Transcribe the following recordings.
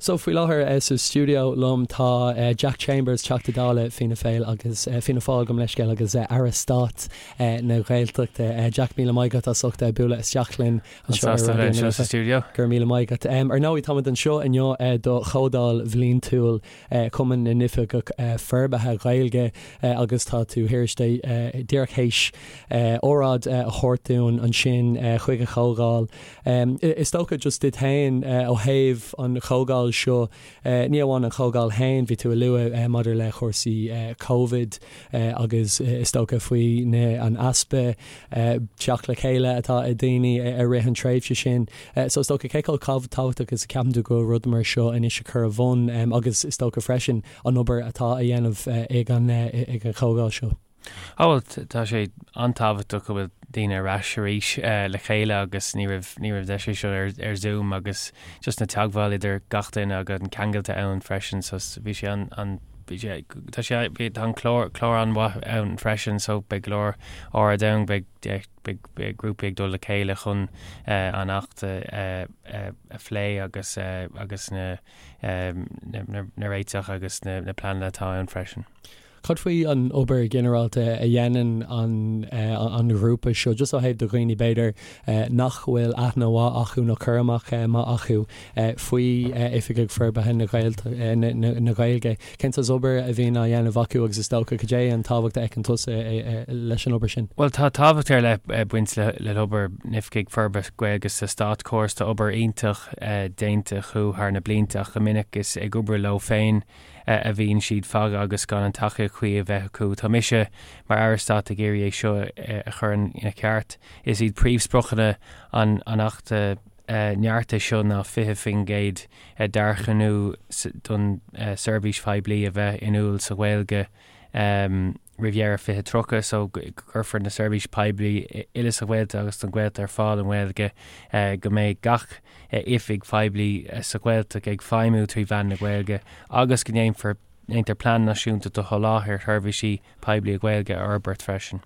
So faoi láthair sa stiúideo liom tá Jack Chambers, Teachta Dála Fianna Féil agus Fianna Fáil gabh mo leithscéal agus Aire Stáit na Gaeltachta. Jack, míle maith agat as ucht bualadh isteach linn anseo ar Raidió na Life. Go raibh míle maith agat. Ar ndóigh táimid anseo inniu do Chomhdháil Bhliantúil Chumann na nOifigeach Forbartha Gaeilge agus tá tú díreach théis óráid a thabhairt dúinn ansin chuig an chomhdháil. Is dócha just duit féin ó thaobh an chomhdháil seo, ní amháin an chomhdháil féin, bhí tú a lua maidir le cúrsaí Covid agus is dócha faoi na an easpa teacht le chéile atá ag daoine i rith an tréimhse sin. So is dócha cé chomh tábhachtach is a ceapann tú go bhfuil rud mar seo anois a chur a bhun agus is dócha freisin an obair atá a dhéanamh ag an ag an chomhdháil seo. Á bhuel, tá sé an-tábhachtach go bhfuil daoine ar ais arís le chéile agus ní raibh, ní raibh deis é seo ar, ar Zoom agus just na teagmháil idir gach duine agus an ceangal atá ann freisin so bhí sé an, an, bhí sé, tá sé, bhí, tá an clár, clár an-mhaith ann freisin so beidh go leor óráid ann, beidh, beidh, beidh grúpaí ag dul le chéile chun an Acht a, a, a phlé agus, agus na, na, na, na réiteach agus na, na pleananna atá ann freisin. Cad faoi an obair ghinearálta a dhéanann an ghrúpa seo, just ó thaobh do dhaoine b'fhéidir nach bhfuil aithne mhaith acu nó cur amach maith acu faoi Oifigigh Forbartha na Gaeilge? Cén saghas obair a bhíonn á dhéanamh acu agus is dócha cad é an tábhacht a fheiceann tusa leis an obair sin? Bhuel tá tábhacht ar leith ag baint le hobair na nOifigigh Forbartha Gaeilge sa státchóras. Tá obair iontach déanta acu thar na blianta ach go minic is ag obair leo féin a bhíonn siad fágtha agus gan an tacaíocht chuí a bheith acu. Tá mise mar Aire Stáit ag iarraidh é seo a chur ina cheart. Is iad príomhspriocanna an Achta neartaithe seo ná 20% d'earcú don seirbhís phoiblí a bheith inniúil sa Ghaeilge, roimh dheireadh 2030 so go gcuirfear na seirbhísí poiblí uile sa Ghaeltacht agus don Ghaeltacht ar fáil i nGaeilge, go mbeidh gach oifig phoiblí sa Ghaeltacht ag feidhmiú trí mheán na Gaeilge agus go ndéanfar ndéantar plean náisiúnta do sholáthar sheirbhísí poiblí i Gaeilge a fhorbairt freisin.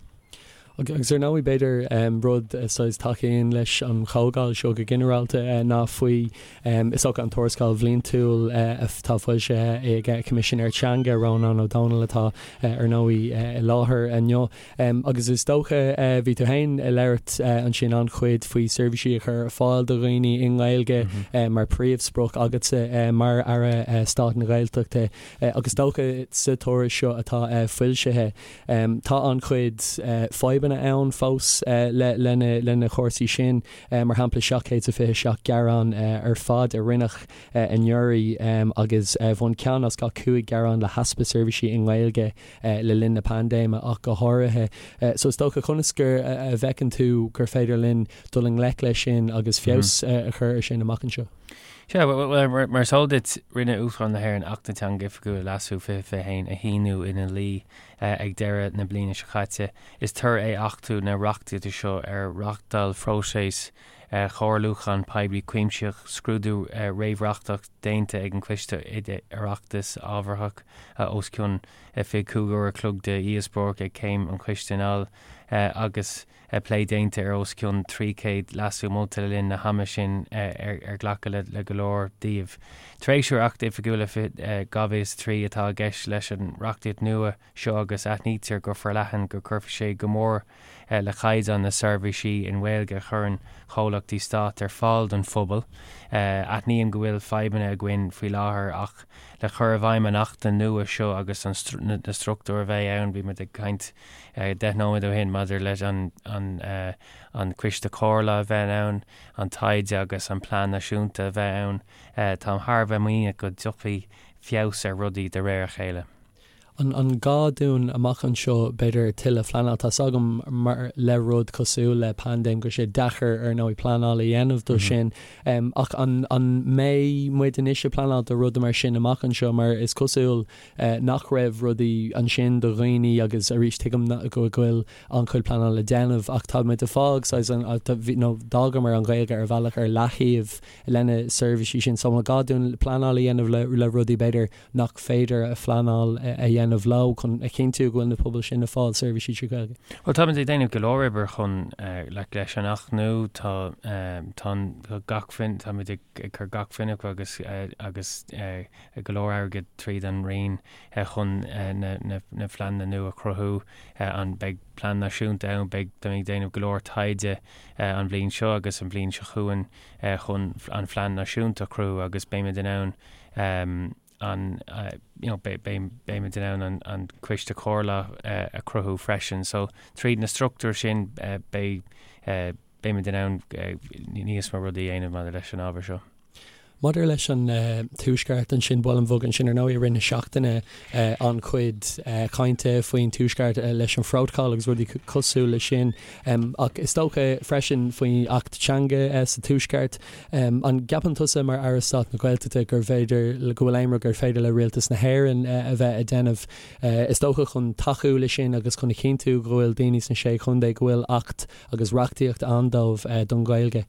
Agus ar ndóigh, b'fhéidir rud saghas tacaíonn leis an chomhdháil seo go ginearálta ná faoi, is dócha, an tuarascáil bhliantúil atá foilsithe ag Coimisinéir Teanga, Rónán Ó Domhnaill atá ar ndóigh i láthair inniu. Agus is dócha, bhí tú féin ag labhairt ansin an-chuid faoi seirbhísí a chur ar fáil do dhaoine i nGaeilge mar príomhsprioc agatsa mar Aire Stáit na Gaeltachta agus is dócha sa tuairisc seo atá foilsithe, Tá an-chuid fadhbanna ann fós le na cúrsaí sin, mar shampla 727 gearán ar fad a rinneadh anuraidh agus bhain ceann as gach 5 gearán le heaspa seirbhísí i nGaeilge le linn na paindéime ach go háirithe. So is dócha conas gur a bhfeiceann tú gur féidir linn dul i ngleic leis sin agus feabhas a chur ar sin amach anseo? Sea, bhuel, mar is eol duit, rinne Uachtarán na hÉireann Acht na Teanga Oifigiúla, Leasú, 2021 a shíniú ina dhlí ag deireadh na bliana seo caite. Is toradh é achtú na reachtaíochta seo ar reáchtáil phróiseas comhairliúcháin poiblí cuimsitheach, scrúdú réamhreachtach déanta ag an Choiste Oireachtais ábharthach, os cionn 25 uair a chloig de dhíospóireacht ag céim an choiste anall, agus. plé déanta ar os cionn 300 leasú molta le linn na hama sin ar glacadh le go leor díobh. Treisiú ar Acht Oifigiúla 2003 atá i gceist leis an reachtaíocht nua seo agus aithnítear go forleathan go gcuirfidh sé go mór le caighdeán na seirbhísí i nGaeilge a chuireann comhlachtaí stáit ar fáil don phobal. Aithním go bhfuil fadhbanna againn faoi láthair ach le cur i bhfeidhm an Achta nua seo agus na struchtúir a bheidh ann, bhí muid ag caint 10 nóiméad ó shin maidir leis an an Coiste Comhairle a bheith ann, an taighde agus an plean náisiúnta a bheith ann. Táim thar a bheith muiníneach go dtiocfaidh feabhas ar rudaí de réir a chéile. An gá dúinn amach anseo b'fhéidir tuilleadh phleanáil? Tá's agam mar le rud cosúil le paindéim go bhfuil sé deacair ar ndóigh pleanáil a dhéanamh do sin ach an mbeidh muid anois ag pleanáil do rudaí mar sin amach anseo mar is cosúil nach raibh rudaí ansin do dhaoine agus arís tuigim go bhfuil an-chuid pleanála le déanamh ach tá muid ag fág saghas an nó d'fhágamar an Ghaeilge ar bhealach ar leathaobh lena seirbhísí sin so an gá dúinn pleanáil a dhéanamh le le rudaí b'fhéidir nach féidir a phleanáil a dhéanamh. dhéanamh leo chun a chinntiú go bhfuil na pobail sin ag fáil seirbhísí trí Ghaeilge? Bhuel, táimid ag déanamh go leor oibre chun like leis an Acht nua, tá tá gach táimid ag cur gach fuinneamh agus agus go leor airgid tríd an Roinn chun na na pleananna nua a chruthú. An beidh plean náisiúnta ann, beidh táimid ag déanamh go leor taighde an bhliain seo agus an bhliain seo chugainn chun an phlean náisiúnta a chruthú agus beimid in ann an you know beimid in ann an an coiste comhairleach a chruthú freisin. So tríd na struchtúir sin beidh beimid in ann níos mó rudaí a dhéanamh maidir leis an ábhar seo. Maidir leis an Tuaisceart ansin, buailim bhog ansin ar ndóigh i rith na seachtaine an-chuid cainte faoin Tuaisceart leis an Phrótacal agus rudaí cosúil leis sin ach is dócha freisin faoin Acht Teanga sa Tuaisceart. An gceapann tusa mar Aire Stáit na Gaeltachta gur féidir, go bhfuil aon rud gur féidir le Rialtas na hÉireann a bheith a déanamh, is dócha, chun tacú leis sin agus chun a chinntiú go bhfuil daoine sna Sé Chontae, go bhfuil Acht agus reachtaíocht ann dóibh don Ghaeilge?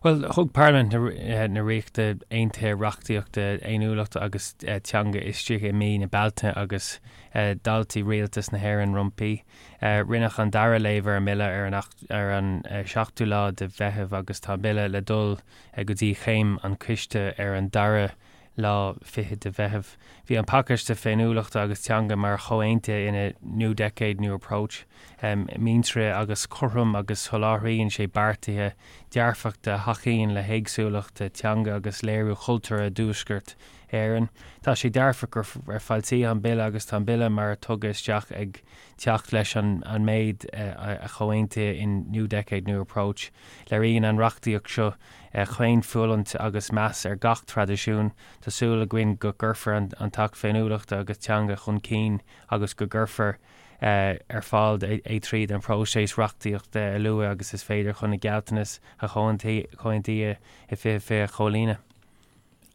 Bhuel, thug Parlaimint na Ríochta Aontaithe reachtaíocht féiniúlachta agus teanga istigh i mí na Bealtaine agus d'fháiltigh Rialtas na hÉireann roimpi. Rinneadh an dara léamh ar an mBille ar an ar an 7ú lá de Mheitheamh agus tá an Bille le dul go dtí chéim an choiste ar an dara lá fichead de Mheitheamh. Bhí an pacáiste féiniúlachta agus teanga mar chomhaontaithe ina New Decade, New Approach muinteartha agus cothrom agus soláthraíonn sé beartaithe dearfachta a thacaíonn le héagsúlacht teanga agus léiriú chultúrtha i dTuaisceart Éireann. Tá sé dearfach gur foilsíodh an Bille agus tá an Bille mar a tugadh isteach ag teacht leis an méid a chomhaontaíodh in New Decade, New Approach. Léiríonn an reachtaíocht seo caoinfhulaingt agus meas ar gach traidisiún. Tá súil againn go gcuirfear an tAcht Féiniúlachta agus Teanga chun cinn agus go gcuirfear ar fáil é tríd an bpróiseas reachtaíochta a luaithe agus is féidir chun na gealltanais a chomhaontaíodh i 2020 a chomhlíonadh.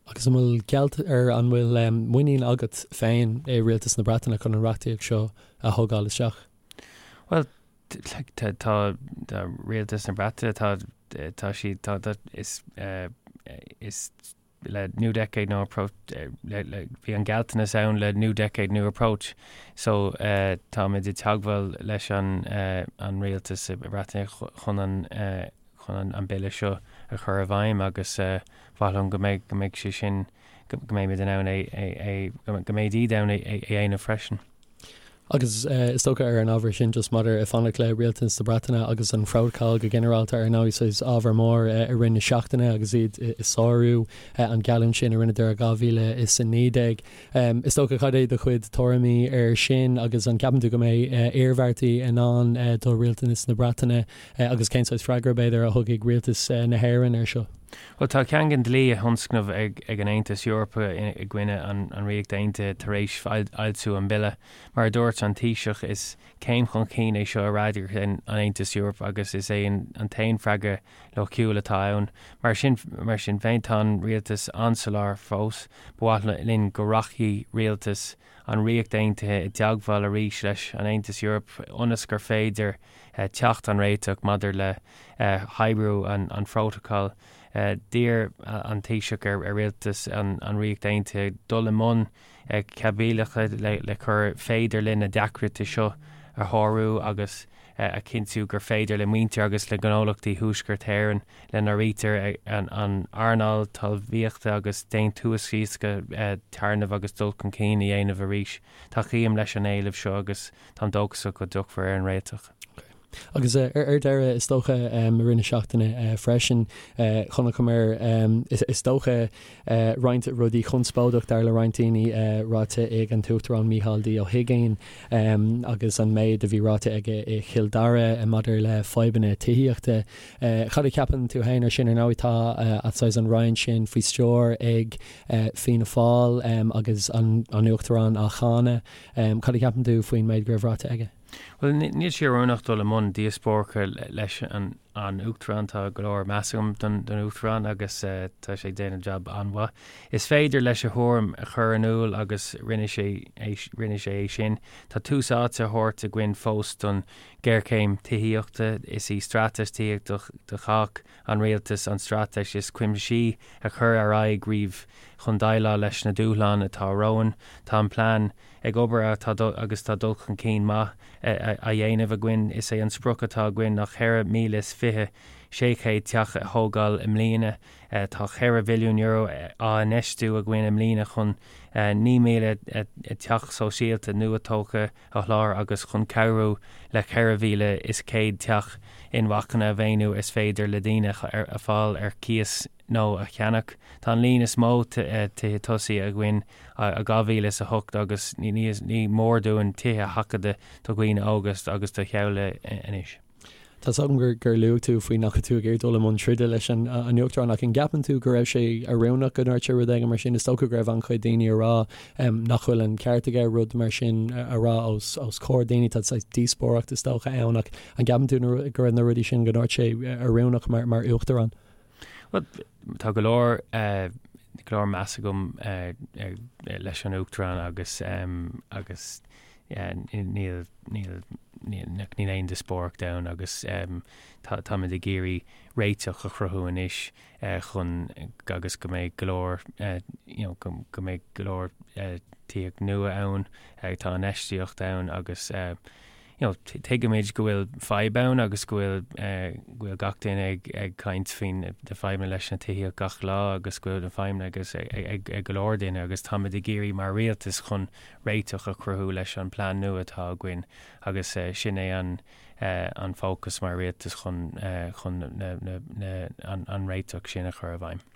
Agus an bhfuil gealt ar an bhfuil muinín agat féin i Rialtas na Breataine chun an reachtaíocht seo a thógáil isteach? Bhuel, tá tá Rialtas na Breataine tá tá siad tá tá is is le New Decade New Approach le le bhí an gealltanas ann le New Decade New Approach so táimid i dteagmháil leis an an rialtas i Breataine chun an chun an Bille seo a chur i bhfeidhm agus ba mhaith liom go mbeidh, go mbeidh sé sin, go mbeimid in ann é, é, é, go mbeidh iad in ann é, é a dhéanamh freisin. Agus is dócha ar an ábhar sin, just maidir ag fanacht le Rialtas na Breataine agus an Phrótacal go ginearálta ar ndóigh, saghas ábhar mór i rith na seachtaine agus iad ag sárú an geallúint sin a rinneadar i 2019. Is dócha, cad é do chuid tuairimí air sin agus an gceapann tú go mbeidh iarmhairtí i ndán do Rialtas na Breataine Agus cén saghas freagra, b'fhéidir, a thugfaidh rialtas na hÉireann air seo? Bhuel, tá caingean dlí á thionscnamh ag an Aontas Eorpach i gcoinne an Ríocht Aontaithe tar éis fhoilsiú an bhille. Mar a dúirt an Taoiseach, is céim chun cinn é seo i bhfreagairt an Aontais Eorpaigh agus is é an t-aon freagra loighciúil atá ann. Mar sin mar sin féin, tá an rialtas an-soiléir fós. Ba mhaith linn go rachaidh rialtas an Ríocht Aontaithe i dteagmháil arís leis an Aontas Eorpach ionas gur féidir teacht ar réiteach maidir le hoibriú an phrótacail. D'iarr an Taoiseach ar rialtas an Ríocht Aontaithe dul i mbun caibidlíochta le gur féidir linn na deacrachtaí seo a shárú agus a chinntiú gur féidir le muintir agus le gnólachtaí Thuaisceart Éireann, lena n-áirítear an earnáil talmhaíochta agus déantúsaíochta, téarnamh agus dul chun cinn a dhéanamh arís. Tacaím leis an éileamh seo agus Táim dóchasach go dtiocfar ar an réiteach. Agus ar deireadh, is dócha, i rith na seachtaine freisin, chonaiceamar, is dócha, roinnt rudaí conspóideach, dar le roinnt daoine, ráite ag an tUachtarán Mícheál D. Ó hUigínn agus an méid a bhí ráite aige i Chill Dara maidir le fadhbanna tithíochta. Cad a cheapann tú féin ar sin? Ar ndóigh, tá saghas an roinn sin faoi stiúir ag Fianna Fáil agus an Uachtarán á cháineadh. Cad a cheapann tú faoin méid go raibh ráite aige? Bhuel, níl sé oiriúnach dul i mbun díospóireachta leis an an Uachtarán, tá go leor meas agam don Uachtarán agus tá sé ag déanamh jab an-mhaith. Is féidir leis a thuairim a chur in iúl agus rinne sé rinne sé é sin. Tá tús áite á thabhairt againn fós don ghéarchéim tithíochta. Is í Straitéis Tithíochta do Chách an Rialtas an straitéis is cuimsithí a cuireadh ar aghaidh riamh chun déileáil leis na dúshláin atá romhainn. Tá an plean ag obair agus tá dul chun cinn maith á dhéanamh againn. Is é an sprioc atá againn ná 24,600 teach a thógáil i mbliana. Tá €4 bhilliún á infheistiú againn i mbliana chun 9,000 teach sóisialta nua-tógtha a sholáthar agus chun cabhrú le 4,100 teach inmharthana a mhaoiniú is féidir le daoine a fháil ar cíos nó a cheannach. Tá an líon is mó tithe tosaigh againn ó 2008 agus ní mór dúinn tithe a sheachadadh do dhaoine óga agus do theaghlaigh anois. Tá 's agam gur luaigh tú faoi nach raibh tú ag iarraidh dul i mbun troda leis an Uachtarán ach an gceapann tú go raibh sé oiriúnach go ndúirt sé rud éigin mar sin? Is dócha go raibh an-chuid daoine ag rá nach bhfuil an ceart aige rud mar sin a rá os comhair daoine. Tá saghas díospóireacht is dócha ann ach an gceapann tú go raibh na rudaí sin go ndúirt sé oiriúnach mar Uachtarán? Bhuel, tá go leor go leor meas agam leis an Uachtarán agus agus níl níl níl aon díospóireacht ann agus táimid ag iarraidh réiteach a chruthú anois chun agus go mbeidh go leor you know go mbeidh go leor tithíocht nua ann, tá infheistíocht ann agus you know, tuigimid go bhfuil fadhb ann agus go bhfuil go bhfuil gach duine ag ag caint faoin na fadhbanna leis na tithíocht gach lá agus go bhfuil na fadhbanna agus ag ag go leor duine agus táimid ag iarraidh mar rialtas chun réiteach a chruthú leis an plean nua atá againn agus sin é an an fócas mar rialtas chun chun na na na an an réiteach sin a chur i bhfeidhm.